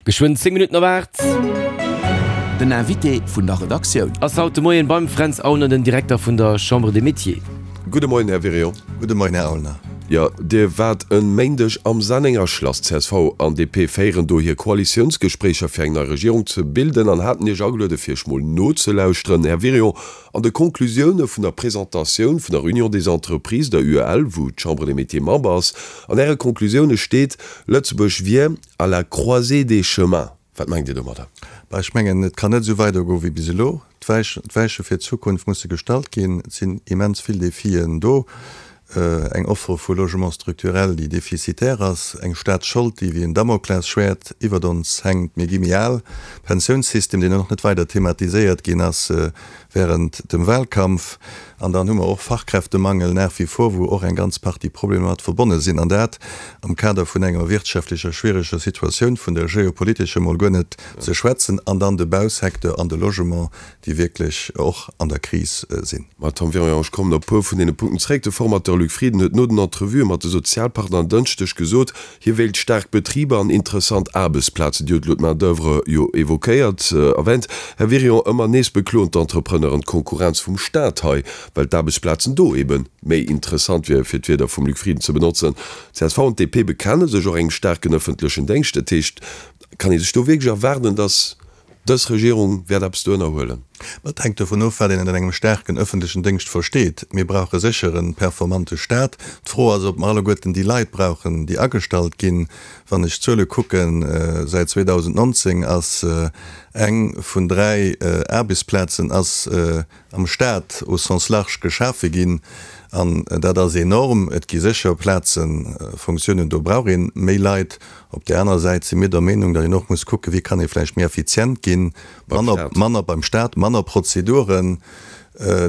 Geschwënn 10 Minutten op 8. Den Invité vun der Redaktioun. Ass haut de Moien beim Fränz Aulner, den Direkter vun der Chambre des Métiers. Gudde Moien, Här Wirion. Gudde Moien, Här Aulner. Jo, Dir waart e Méindeg am Sennenger Schlass. Csv an DP féieren do hir Koalitiounsgespréicher fir eng nei Regierung ze bilden an haten Iech ageluede fir Iech mol nozelauschteren. Här Wirion, an de Konklusioune vun der Presentatioun vun der Union des Entreprises, der UEL, wou d'Chambre des Métiers Member ass, an Äre Konklusioune steet, Lëtzebuerg wier À la croisée des chemins, wat mengt Dir domadder? Bah, ech mengen, et kann net esou weidergoen wéi bis elo. D'Weiche fir d'Zukunft musse gestallt ginn. Et sinn immens vill Defien do. Eng Offre vu Logement structurel, déi defizitär ass, eng Staatsschold, déi wéi en Damoklesschwäert iwwert ons hänkt. Mir gi méi al. Pensiounssystem, deen och net weider thematiséiert ginn ass während dem Wahlkampf. An dann hu mer och Fachkräftemangel nach wie vor, wou och eng ganz Partie Problemer mat verbonne sinn. An dat am Kader vun enger wirtschaftlecher schwiereger Situatioun, vun der geopolitescher mol guer net ze schwätzen, an dann de Bausecteur an de Logement, déi wierklech och an der Kris sinn. Ma Tom Wirion, ech kommen op e puer vun deene Punkten zréck. De Formateur Luc Frieden huet no den Entrevuë mat de Sozialpartner en Dënschdeg gesot, Hie wéilt staark Betriber an interessant Aarbechtsplazen. Dir hutt elo d'Main d'oeuvre jo évoquéiert, erwänt. Här Wirion, ëmmer nees bekloen d'Entrepreneuren d'Konkurrenz vum Staat hei, well d'Aarbechtsplazen do ebe méi interessant wieren, fir d'Wierder vum Luc Frieden ze benotzen. Csv an d'DP bekenne sech och engem staarken ëffentlechen Déngscht. Dat heescht, kann ee sech do wierklech erwaarden, datt Dës Regierung wäert eppes do ënnerhuelen. Et hänkt dovun of, wat een ënner engem staarken ëffentlechen Déngscht versteet. Mir brauche sécher e performante Staat. D'Fro ass, ob mer alleguerten déi Leit brauchen, déi agestallt ginn. Wann ech d'Zuele kucken, säit 2019 ass eng vun 3 Aarbechtsplazen ass am Staat au sens large geschafe ginn. An dat ass enorm. Et gi sécher Plazen, Fonctiounen, do brauch ee méi Leit. Op där anerer Säit si mir der Meenung, datt een och muss kucken, wéi kann ee vläicht méi effizient ginn, manner, manner beim Staat, manner Prozeduren.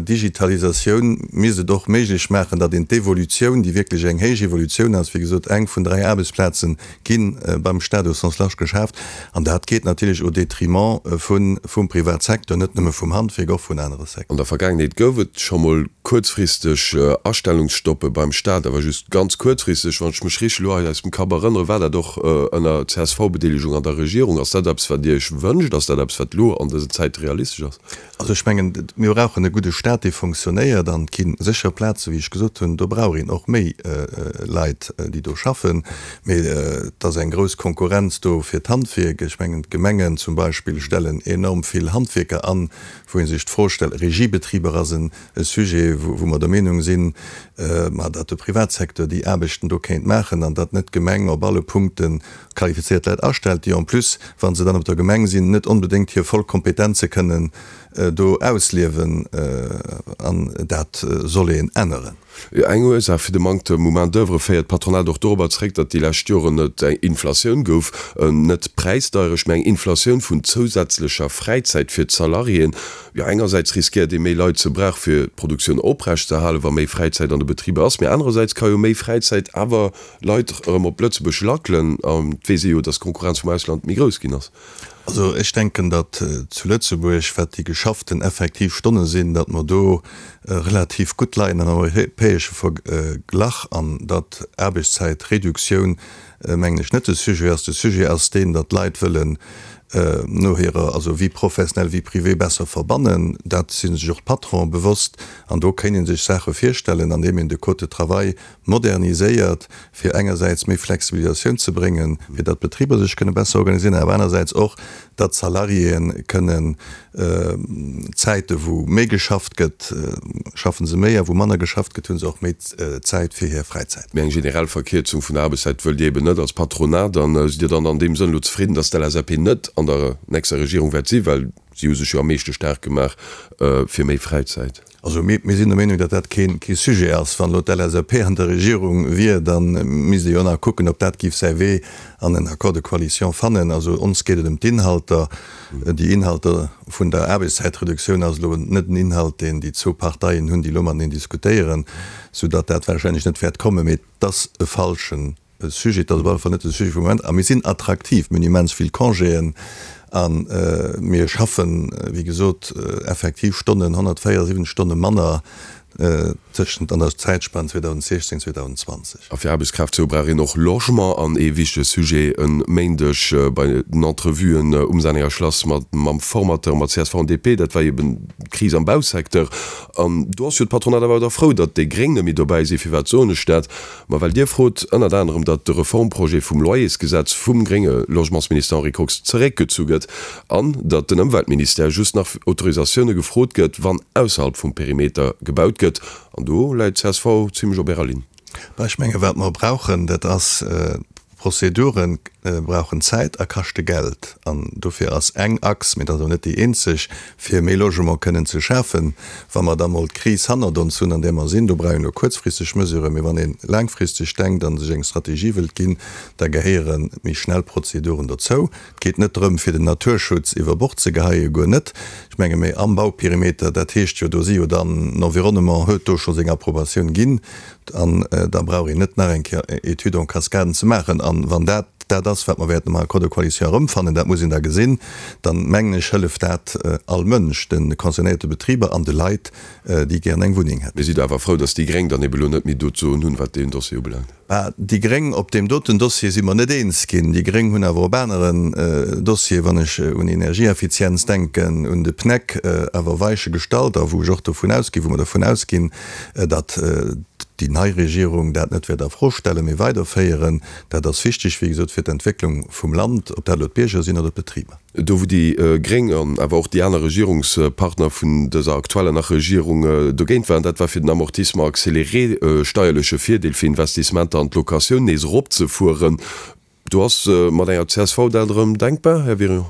Digitalisatioun misst et och méiglech maachen, datt een d'Evolutioun, déi wierklech eng héich Evolutioun ass, wéi gesot, eng vun 3 Aarbechtsplaze gi beim Staat au sens large geschaaft, an dat geet natierlech au détriment vun, vum Privatsecteur, net nëmme vum Handwierk, och vun anere Secteuren. An der Vergaangenheet gouf et scho mol kuerzfristeg Astellungsstoppe beim Staat, awer just ganz kuerzfristeg. Wann ech mech richteg elo hei aus dem Kapp erënnere, war dat och ënner CSV-Bedeelegung an der Regierung. Ass dat eppes, wat Dir Iech wënscht? Ass dat eppes, wat elo an dësen Zäite realistesch ass? Also ech mengen, mir brauchen e gudde Staat, dee fonctionnéiert. An et gi sécher Plazen, wéi ech gesot hunn, do brauch een och méi Leit, déi do schaffen. Mee et ass eng grouss Konkurrenz do fir d'Handwierk. Ech mengen, d'Gemengen zum Beispill stellen enorm vill Handwierker an, wou ee sech d'Fro stellt, Regiebetriber ass e Sujet, wou mer der Meenung sinn, ma datt de Privatsecteur déi Aarbechten do kéint maachen an datt net d'Gemeng op alle Punkte qualifizéiert Leit astellt, déi en plus, wa se dann op der Gemeng sinn, net onbedéngt hir voll Kompetenze kënnen do ausliewen. An dat soll een änneren. Eng Ursaach fir de Manktem u Main d'oeuvre féiert d'Patronat och dorobber zeréck, datt déi lescht Joren et eng Inflatioun gouf, net Präisdeierecht, mä eng Inflatioun vun zousätzlecher Fräizäit fir d'Salariéen. Jo, engersäits riskéiert ee méi Leit ze brauche fir d'Produktioun oprecht ze halen, wa méi Fräizäit an de Betriber ass, mä anerersäits ka jo méi Fräizäit awer Leit erëm op Lëtzebuerg lackelen, an et weess ee jo, datt d'Konkurrenz vum Ausland méi grouss ginn ass. Also ech denken, datt zu Lëtzebuerg, wat déi geschafften effektiv Stonne sinn, datt mer do relativ gutt leien am europäesche Verglach an datt Aarbechtszäitreduktioun, mengen ech, net de Sujet ass. De Sujet ass deen, datt d'Leit wëllen no hirer, also Vie professionnelle, Vie privée besser verbannen. Dat si sech och d'Patronen bewosst an do kéint ee sech Saache virstellen, andeem een de Code de travail moderniséiert, fir engersäits méi Flexibilisatioun ze bréngen, fir datt d'Betriber sech kënne besser organiséieren, awer anersäits och, datt d'Salariéen kënnen Zäite wou méi geschafft gëtt, schaffe se méi, a wou manner geschafft gëtt, hu se och méi Zäit fir hir Fräizäit. Mee eng generell Verkierzung vun der Aarbechtszäit wëllt Dir eben net als Patronat. An sidd Dir dann an deem Sënn elo zefridden, datt d'LSAP net an der nächster Regierung wäert sinn, well si hu sech jo am meeschte staark gemaach fir méi Fräizäit? Also mir sinn der Meenung, datt dat kee Sujet ass. Wann elo d'LSAP an der Regierung wier, da misst ee jo nach kucken, ob dat géif säi Wee an en Accord de coalition fannen. Also ons geet et ëm d'Inhalter. Déi Inhalter vun der Aarbechtszäitreduktioun ass elo net en Inhalt, deen déi zwou Parteien hunn, déi elo mateneen diskutéieren, soudatt dat warscheinlech net wäert kommen. Mee et ass e falschen E Sujet, dat ass op alle Fall net de Sujet vum Moment. A mir sinn attraktiv, mir hunn immens vill Congéen a mir schaffen, wéi gesot, effektiv Stonnen, 174 Stonne manner. tëschent an der Zäitspann 2016, 2020. A fir Aarbechtskraaft ze hu brauch een och Logement. An ee wichtege Sujet e Méindeg bei den Entrevuen um Sennenger Schlass mat mam Formateur, mat csv an DP, dat war eben d'Kris am Bausecteur. An do ass jo d'Patronat awer da frou, datt déi Gréng net méi dobäi sinn. Firwat soen ech dat? Ma well Dir frot ënnert anerem, datt de Reformprojet vum Loyersgesetz vum grénge Logementsminister Henri Kox zeréckgezu gëtt an datt den Ëmweltministère just nach fir Autorisatioune gefrot gëtt, wann ausserhalb vum Perimeter gebaut gëtt. An do läit csv zimmlech op Ärer Linn. Bah, ech menge wat mer brauchen, dat ass, Prozedure brauchen Zäit a kaschte Geld. An dofir ass eng Achs, mee dat ass awer net déi eenzeg, fir méi Logement kënnen ze schafen, wa mer da mol d'Kris hannert ons hunn, an där mer sinn, do brauch een elo kuerzfristeg Mesuren, mee wann ee laangfristeg denkt a sech eng Strategie wëllt ginn, da gehéiere méi schnell Prozeduren dozou. Et geet net drëm, fir den Naturschutz iwwer Bord ze geheien, guer net. Ech menge méi am Bauperimeter, dat heescht jo, do si jo dann, den Environnement huet do scho seng Approbatioun ginn, an da brauch een net nach eng Kéier Études en cascade ze maachen. An wann dat dat ass, wat mer wäerten am Accord de coalition erëmfannen, dat muss een da gesinn, dann, mengen ech, hëlleft dat all Mënsch, de concernéierte Betriber an de Leit, déi gären eng Wunneng hätten. Mir si do awer frou, dass déi Gréng dann ebe lo net méi do d'Soen hunn, wat deen Dossier ubelaangt. Bah, déi Gréng, op deem doten Dossier si mer net eens ginn. Déi Gréng hunn awer op aneren Dossieren, wann ech un Energieeffizienz denken, un de PNEC, awer Weiche gestallt a wou ech och dovun ausginn, wou mer dovun ausginn, datt déi nei Regierung dat net wäert a Fro stellen, mee weiderféieren. Dat ass wichteg, wéi gesot, fir d'Entwécklung vum Land, ob dat elo d'Bierger sinn oder d'Betriber. Do wou déi Gréng an awer och déi aner Regierungspartner vun dëser aktueller nach Regierung dogéint waren, dat war fir den Amortissement accéléré, steierleche Virdeel fir Investissementer an d'Locatioun, nees eropzefueren. Do ass mat enger csv dat erëm denkbar, Här Wirion?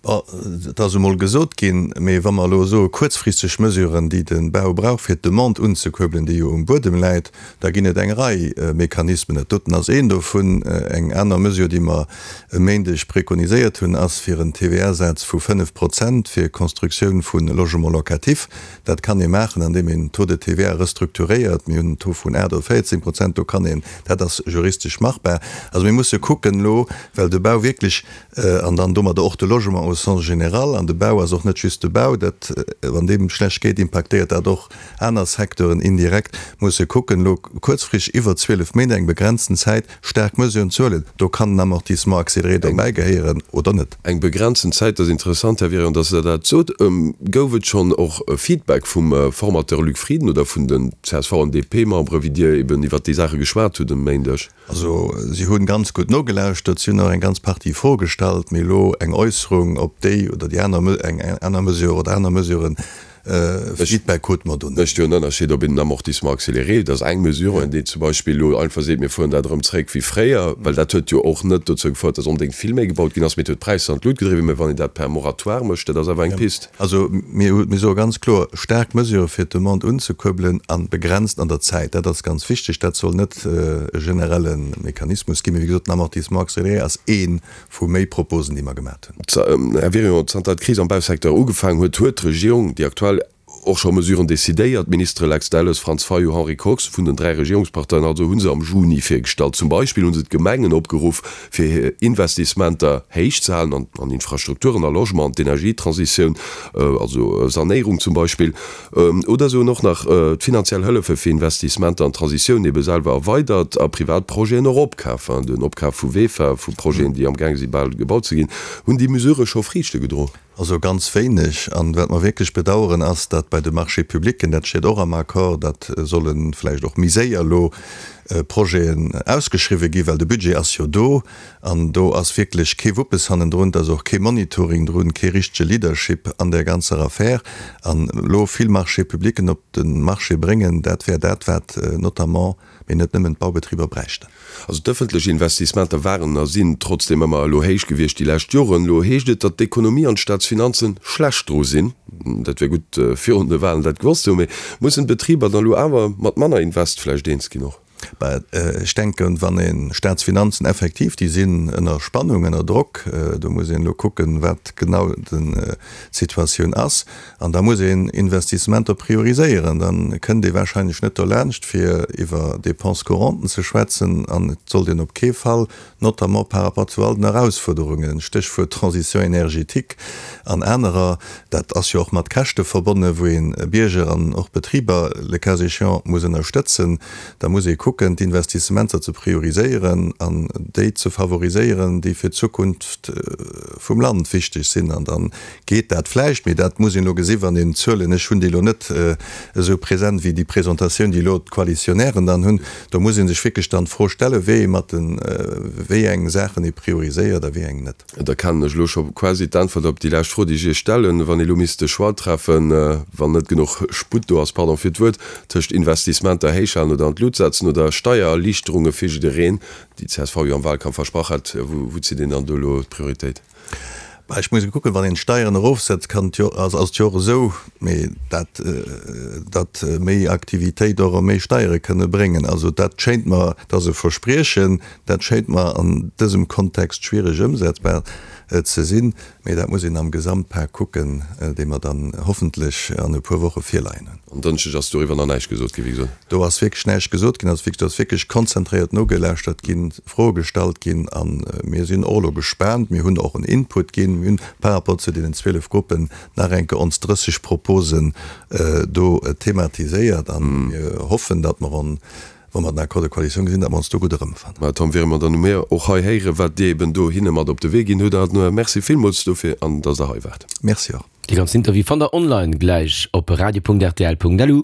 Bon, et ass emol gesot ginn, mee wa mer elo soe kuerzfristeg Mesuren, déi de Bau brauch fir d'Demande unzekuerbelen, déi jo um Buedem läit, da ginn et eng Rei Mechanismen. Dat doten ass een dovun. Eng aner Mesure, déi mer e Méindeg prekoniséiert hunn, ass fir en TVA-Saz vu 5 Prozent fir Constructioun vu Logement locatif. Dat kann ee maachen, andeem een Taux de TVA restrukturéiert. Mir hunn en Taux vun 8 oder 14 Prozent, do kann een, dat ass juristesch machbar. Also mir musse kucken elo, well de Bau wierklech, an dann domadder och de Logement au sens général, an de Bau ass och net just de Bau, dat, wann deem schlecht geet, impaktéiert dat och aner Secteuren indirekt, musse kucken elo kuerzfristeg iwwer 12 Méint, eng begrenzten Zäit, staark Mesuren ze huelen. Do kann en Amortissement accéléré dobäi gehéieren oder net. Eng begrenzten Zäit, dat ass interessant, Här Wirion, dass Der dat sot. Gouf et schonn och e Feedback vum Formateur Luc Frieden oder vun den csv an DP-Membere, wéi Dir eben iwwert déi Saache geschwat hutt e Méindeg? Also, si hu ganz gutt nogelauschtert, si hunn och eng ganz Partie Froe gestallt, mee elo eng Äusserung, ob déi oder déi aner, eng aner Mesure oder aner Mesuren, Feedback krute mer do net. Mécht jo en Ënnerscheed, ob een den Amortissement accéléré, dat ass eng Mesure, an déi zum Beispill elo einfach seet, mir fueren dat erëm zréck wéi fréier, well dat huet jo och net dozou gefouert, datt onbedéngt vill méi gebaut ginn ass, mee et huet d'Präisser an d'Lut gedriwwen. Mä wann een dat per Moratoire mécht, dat ass awer eng Pist. Also mir hu, mir soe ganz kloer, staark Mesure fir d'Demande unzekuerbelen a begrenzt an der Zäit. Dat ass ganz wichteg. Dat soll net e generelle Mechanismus ginn. Mee wéi gesot, den Amortissement accéléré ass ee vu méi Proposen, déi mer gemat hunn. Här Wirion, zanter d'Kris am Bausecteur ugefaangen huet, huet d'Regierung, déi aktuell, och scho Mesuren decidéiert. D'Ministere Lex Delles, Franz Fayot, Henri Kox vun den 3 Regierungsparteien also hu se am Juni virgestallt. Zum Beispill hu se d'Gemengen opgeruff, fir hir Investissementer héich ze halen an Infrastrukturen, a Logement, an d'Energietransitioun, also Sanéierung zum Beispill. Oder se hunn och nach d'finanziell Hëllefe fir Investissementer an d'Transitioun ebe selwer erweidert a privat Projeten och opkaf, den Opkaf vu VEFA, vu Projeten, déi amgaang si bal gebaut ze ginn. Hunn déi Mesurë scho Friichte gedroen? Also ganz wéineg. An wat mer wierklech bedauern, ass, datt bei de Marchés publics, dat steet och am Accord, datt solle vläicht och méi séier elo Projeten ausgeschriwwen ginn, well de Budget ass jo do. An do ass wierklech kee Wuppes hannendrun, et ass och kee Monitoring drun, kee richtege Leadership an där ganzer Affär. An elo vill Marchés publicen op de Marché bréngen, dat wär dat, wat notamment, mee net nëmmen, d'Baubetriber bräichten. Also d'ëffentlech Investissementer waren a sinn trotzdeem ëmmer elo héich gewiescht déi lescht Joren. Elo heescht et, datt d'Ekonomie an d'Staatsfinanze schlecht dru sinn. Dat wär gutt virun de Wahlen dat gewosst ze hunn. Mee mussen d'Betriber dann elo awer mat manner Invest vläicht eens ginn och? Bah, ech denken, wann ee Staatsfinanzen effektiv, déi sinn ënner Spannung, ënner Drock, do muss een elo kucken, wat genau d'Situatioun ass, an da muss een Investissementer prioriséieren. Da kënnt ee wahrscheinlech net dolaanscht, fir iwwer Dépenses courantes ze schwätzen, an et sollt een op kee Fall notamment par rapport zu all den Erausfuerderungen, Stéchwuert Transition énergétique an anerer, dat ass jo och mat Käschte verbonnen, wou ee Bierger an och Betriber le cas échéant muss ënnerstëtzen, da muss ee kucken, d'Investissementer ze prioriséieren an déi ze favoriséieren, déi fir d'Zukunft vum Land wichteg sinn. An da geet dat vläicht, mee dat muss een elo gesi wann een d'Zuelen, ech hunn déi elo net esou present wéi déi Presentatioun, déi elo d'Koalitionären dann hunn, do muss ee sech wierklech dann d'Fro stellen, wéi ee mat de wéi eng Saachen ee prioriséiert a wéi eng net. Da kennen ech elo scho quasi d'Äntwert op déi lescht Fro, déi ech Iech stellen. Wann ee elo misst de Choix treffen, wann net genuch Sputt do ass, pardon fir d'Wuert, tëscht Investissementer héichhalen oder an d'Lut setzen oder Steiererliichterunge fir jiddereen, déi d'CSV jo am Wahlkampf versprach hat, wou zitt een dann do elo d'Prioritéit? Bah, ech muss kucken, wann een d'Steieren erofsetzt, kann et jo, ass et jo och esou, mee dat, datt méi Aktivitéit och erëm méi Steiere kënne bréngen. Also dat schéint mer, dat ass e Verspriechen, dat schéint mer an dësem Kontext schwiereg ëmsetzbar ze sinn. Mee dat muss een am Gesamtpak kucken, dee mer dann hoffentlech an e puer Woche virleien hunn. En Dënschdeg ass doriwwer nach näischt gesot ginn, wéi gesot. Do ass wierklech näischt gesot ginn. Also do ass wierklech konzentréiert nogelauschtert ginn, Froe gestallt ginn a mir sinn och elo gespaant. Mir hunn och en Input ginn. Mir hunn par rapport zu deenen 12 Gruppen nach eng Kéier ons 30 Proposen do thematiséiert a mir hoffen, datt mer en, wa mer den Accord de coalition gesinn, datt mer ons do gutt erëmfannen. Mä Tom, wäre mer dann u mir och hei héieren, wat Dir eben do hinne mat op de Wee ginn hutt. A Merci villmools dofir an datt Der hei waart. Merci och. Dee ganzen Interview fannt der online gläich op radio.rtl.lu.